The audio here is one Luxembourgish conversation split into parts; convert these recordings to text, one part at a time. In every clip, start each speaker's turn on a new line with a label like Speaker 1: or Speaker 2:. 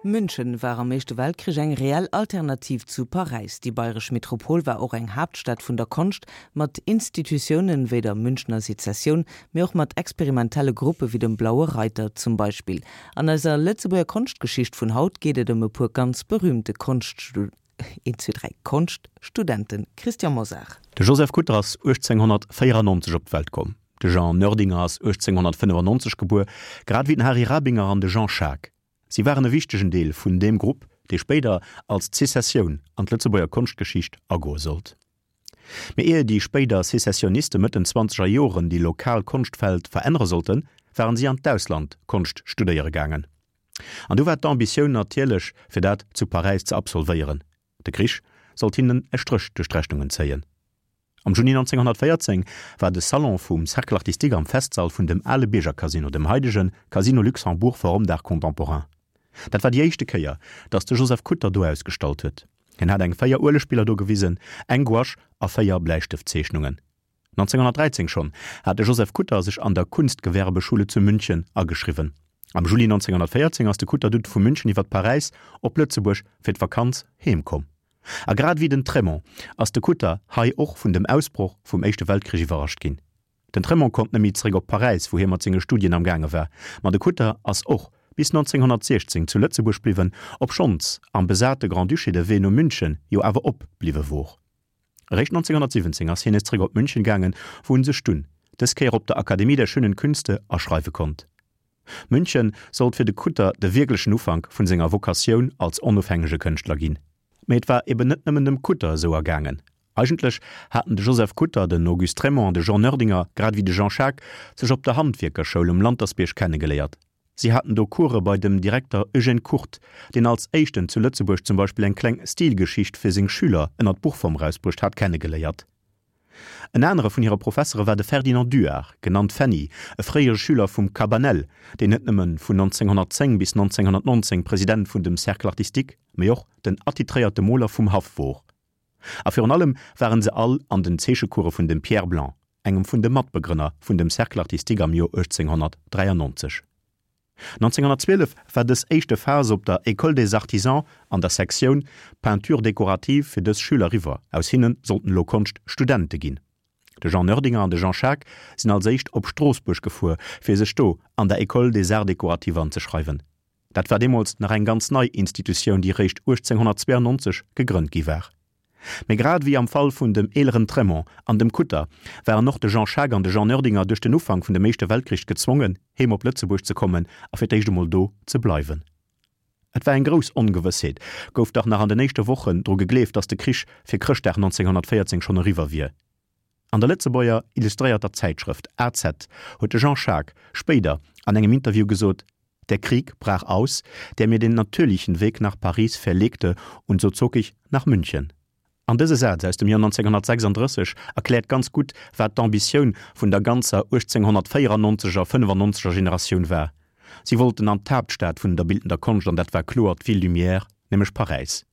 Speaker 1: München war am Éischte Weltkrich eng reell Alternativ zu Paräis. Déi bayresch Metropol war och eng Haaptstad vun der Konscht, mat Institutiounen wéi der Münchner Sezessioun, mee och mat experimentelle Gruppe wéi dem Blaue Reiter zum Beispill. An eiser Lëtzebuerger Konschtgeschicht vun haut geet et ëm e puer ganz berühmte Konschtstudenten. Christian Mosar.
Speaker 2: De Joseph Kutter ass 1894 op d'Welt komm. De Jean Noerdinger ass 1895 gebuer, grad ewéi den Hary Rabinger an de Jean Schaack. Si waren e wichtegen Deel vun deem Grupp, dee spéider als d'Sezessioun an d'Lëtzebuerger Konschtgeschicht agoe sollt. Mee ier déi spéider Sezessioniste Mëtt den zwanzeger Joren déi lokal Konschtfeld verännere sollten, waren si an d'Ausland Konscht studéiere gaangen. An du war d'Ambitioun natierlech, fir dat zu Paräis ze absolvéieren. De Krich sollt hinnen e Stréch duerch d'Rechnungen zéien. Am Juni 1914 war de Salon vum Cercle Artistique am Festsall vun dem ale Biergercasino, dem haidege Casino Luxembourg Forum d'Art Contemporain. Dat war déi éischte Kéier, datt de Joseph Kutter do ausgestallt huet. Hien hat eng 4 Uelegbiller do gewisen, eng Gouache a 4 Bläistëftzeechnungen. 1913 schonn hat de Joseph Kutter sech an der Kunstgewerbeschule zu München ageschriwwen. Am Juli 1914 ass de Kutter dunn vu München iwwer Paräis op Lëtzebuerg fir d'Vakanz heem komm. A grad ewéi den Trémont ass de Kutter hei och vun dem Ausbroch vum Éischte Weltkrich iwwerrascht ginn. Den Trémont konnt net méi zeréck op Paräis, wou hie mat senge Studien am gaange war, ma de Kutter ass och bis 1916 zu Lëtzebuerg bliwwen, obschonns am besate Grand-Duché de Wee no München jo awer op bliwwe wor. Eréischt 1917 ass hien nees zeréck op München gaangen, wou en sech dunn, dës Kéier op der Akademie der Schönen Künste, aschreiwe konnt. München sollt fir de Kutter de wierklechen Ufank vun senger Vokatioun als onofhängege Kënschtler ginn. Mee et war eben net nëmmen dem Kutter esou ergaangen. Eigentlech haten de Joseph Kutter, den Auguste Trémont an de Jean Noerdinger, grad ewéi de Jean Schaack, sech op der Handwierkerschoul um Lantersbierg kennegeléiert. Si haten do Course bei dem Direkter Eugène Kurt, deen als éischten zu Lëtzebuerg zum Beispill eng kleng Stilgeschicht fir seng Schüler ënnert Buchform erausbruecht hat, kennegeléiert. En anere vun hire Professere war de Ferdinand Duard, genannt Fenny, e fréiere Schüler vum Cabanel, deen net nëmme vun 1910 bis 1919 President vun dem Cercle artistique, mee och den attitréierte Moler vum Haff wor. A virun allem waren se all an den Zeechecourse vun dem Pierre Blanc, engem vun de Matbegrënner vun dem Cercle artistique am Joer 1893. 1912 war dës éischte Phas op der École des Artisans an der Sektioun Peinture décorative fir dës Schüler eriwwer, aus hinne sollten elo Konschtstudente ginn. De Jean Noerdinger an de Jean Schaack sinn als éischt op Stroossbuerg gefuer, fir sech do an der École des Arts décoratifs anzeschreiwen. Dat war deemools nach eng ganz nei Institutioun, déi réischt 1892 gegrënnt gi war. Mee grad ewéi am Fall vun dem eeleren Trémont an dem Kutter waren och de Jean Schaack an de Jean Noerdinger duerch den Ufank vun dem Éischte Weltkrich gezwongen, heem op Lëtzebuerg ze kommen a fir d'éischt emol do ze bleiwen. Et war eng grouss Ongewëssheet, gouf dach nach an den éischte Wochen dru gegleeft, datt de Krich fir Chrëschtdag 1914 schonn eriwwer wier. An der Lëtzebuerger illustréierter Zäitschrëft AZ huet de Jean Schaack spéider an engem Interview gesot, Der Krieg brach aus, der mir den natürlichen Weg nach Paris verlegte, und so zog ich nach München. An dëse Saz aus dem Joer 1936 erkläert ganz gutt, wat d'Ambitioun vun der ganzer 1894 er, 95 er Generatioun war. Si wollten an d'Haaptstad vun der bildender Konscht, an dat war kloer d'Ville Lumière, nämlech Paräis.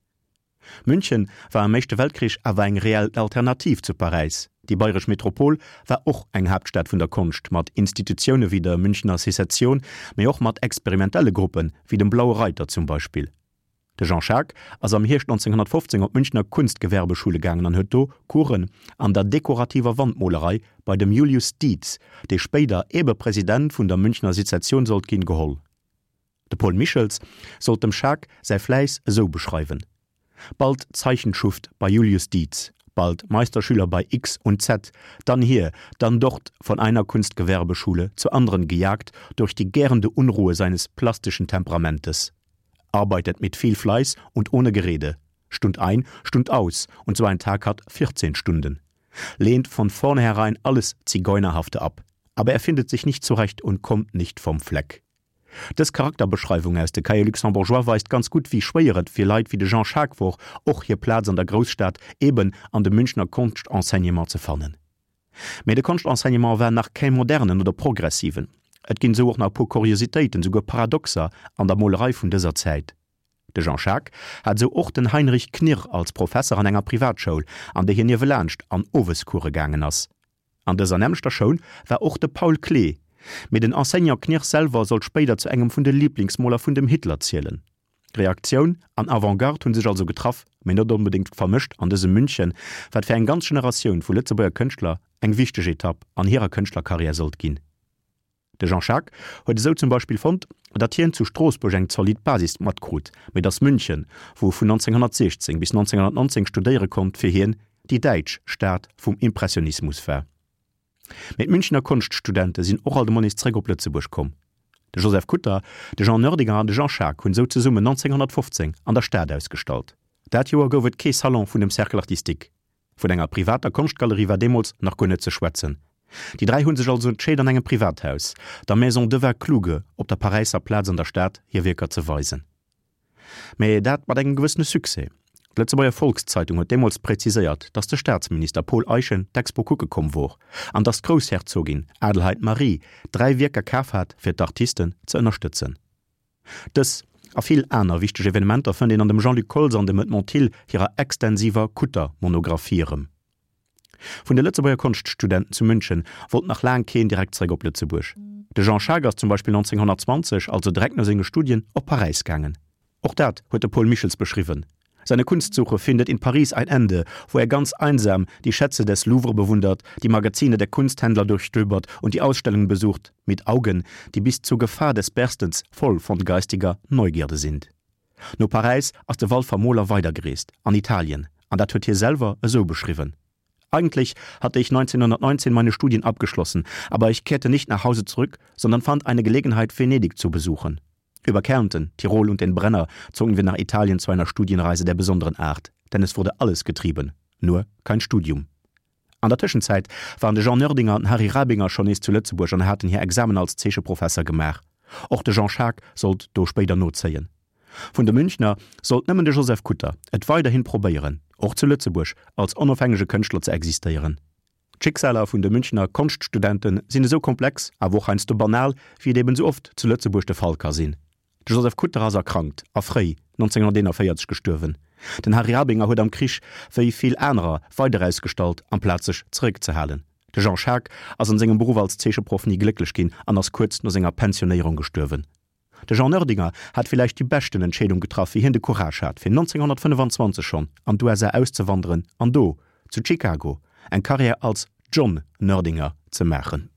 Speaker 2: München war am Éischte Weltkrich awer eng reell Alternativ zu Paräis. Déi bayresch Metropol war och eng Haaptstad vun der Konscht, mat Institutioune wéi der Münchner Sezession, mee och mat experimentelle Gruppe wéi dem Blaue Reiter zum Beispill. De Jean Schaack ass am Hierscht 1915 op d'Münchner Kunstgewerbeschule gaangen an huet do Coursen an der dekorativer Wandmolerei bei dem Julius Dietz, dee spéider ebe President vun der Münchner Sezession sollt ginn, geholl. De Paul Michels sollt dem Schaack säi Fläiss esou beschreiwen, Bald Zeichenschuft bei Julius Dietz, bald Meisterschüler bei X und Z, dann hier, dann dort von einer Kunstgewerbeschule zur anderen gejagt durch die gärende Unruhe seines plastischen Temperamentes. Arbeitet mit viel Fleiß und ohne Gerede, Stund ein, Stund aus, und so ein Tag hat 14 Stunden. Lehnt von vornherein alles Zigeunerhafte ab, aber er findet sich nicht zurecht und kommt nicht vom Fleck. Dës Charakterbeschreiwung aus de Cahiers luxembourgeois weist ganz gutt, wéi schwéier et fir Leit wéi de Jean Schaack wor, och hir Plaz an der Grousstad, eben an dem Münchner Konschtenseignement ze fannen. Mee de Konschtenseignement war nach kee modernen oder progressiven. Et ginn esou och nach e puer Kuriositéiten, souguer Paradoxer an der Molerei vun dëser Zäit. De Jean Schaack hat esou och den Heinrich Knirr als Professer an enger Privatschoul, an déi hien niewelaanscht an Owescourse gaangen ass. An dëser nämmlechter Schoul war och de Paul Klee, mee den Enseignant Knirr selwer sollt spéider zu engem vun de Liblingsmoler vun dem Hitler zielen. Reaktioun an Avantgarde hu sech also getraff, mee net onbedéngt vermëscht an dësem München, wat fir eng ganz Generatioun vu Lëtzebuerger Kënschtler eng wichteg Etapp an hirer Kënschtlerkarriär sollt ginn. De Jean Schaack huet esou zum Beispill fonnt, datt hien zu Stroossbuerg eng zolidd Basis matkrut, mee datt München, wou e vun 1916 bis 1919 studéiere konnt, fir hien déi däitsch Stad vum Impressionismus war. Mee d'Münchener Konschtstudente sinn och alt emol nees zeréck op Lëtzebuerg komm. De Joseph Kutter, de Jean Noerdinger an de Jean Schaack hunn esou zesummen 1915 an der Stad ausgestallt. Dat Joer gouf et kee Salon vun dem Cercle artistique. Vun enger privater Konschtgalerie war deemools nach guer net ze schwätzen. Déi 3 hu sech also entscheet an engem Privathaus, der Maison Dewar-Kluge op der Paräisser Plaz an der Stad, hir Wierker ze weisen. Mä dat mat engem gewëssene Succès. D'Lëtzebuerger Volkszeitung huet deemools präziséiert, datt de Staatsminister Paul Eyschen d'Expo kucke komm wor an datt d'Groussherzogin Adelheid Marie 3 Wierker kaf hat fir d'Artisten ze ënnerstëtzen. Dës a vill aner wichteg Evenementer fënnt een an dem Jean-Luc Koltz an dem Edmond Thill hirer extensiver Kutter-Monographie erëm. Vun de Lëtzebuerger Konschtstudenten zu München wollt nach laang keen direkt zeréck op Lëtzebuerg. De Jean Schaack ass zum Beispill 1920, also direkt no senge Studien, op Paräis gaangen. Och dat huet de Paul Michels beschriwwen, Seine Kunstsuche findet in Paris ein Ende, wo er ganz einsam die Schätze des Louvre bewundert, die Magazine der Kunsthändler durchstöbert und die Ausstellungen besucht, mit Augen, die bis zur Gefahr des Berstens voll von geistiger Neugierde sind. No Paräis ass de Walfer Moler weidergereest, an Italien, an dat huet hie selwer esou beschriwwen, Eigentlich hatte ich 1919 meine Studien abgeschlossen, aber ich kehrte nicht nach Hause zurück, sondern fand eine Gelegenheit, Venedig zu besuchen. Über Kärnten, Tirol und den Brenner zogen wir nach Italien zu einer Studienreise der besonderen Art, denn es wurde alles getrieben, nur kein Studium. An der Tëschenzäit waren de Jean Noerdinger an den Harry Rabinger schonn nees zu Lëtzebuerg an haten hir Examen als Zeecheprofesser gemaach. Och de Jean Schaack sollt do spéider nozéien. Vun de Münchner sollt nëmmen de Joseph Kutter et weiderhin probéieren, och zu Lëtzebuerg als onofhängege Kënschtler ze existéieren. D'Schicksaler vun de Münchner Konschtstudente sinn esou komplex, awer och heiansdo banal, wéi et eben esou oft zu Lëtzebuerg de Fall ka sinn. De Joseph Kutter ass erkrankt a fréi 1941 gestuerwen. Den Harry Rabinger huet am Krich, wéi vill anerer, weider ausgestallt, amplaz sech zeréckzehalen. De Jean Schaack ass an sengem Beruff als Zeecheproff ni glécklech ginn an ass kuerz no senger Pensionéierung gestuerwen. De Jean Noerdinger hat villäicht déi beschten Entscheedung getraff, wéi hien de Courage hat, fir 1925 schonn an d'USA auszewanderen an do, zu Chicago, eng Karriär als John Noerdinger ze maachen.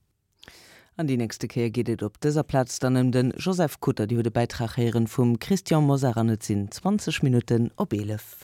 Speaker 1: An déi nächste Kéier geet et op dëser Plaz dann ëm de Joseph Kutter. Dir hutt e Bäitrag héieren vum Christian Mosar an et sinn 20 Minutten op 11.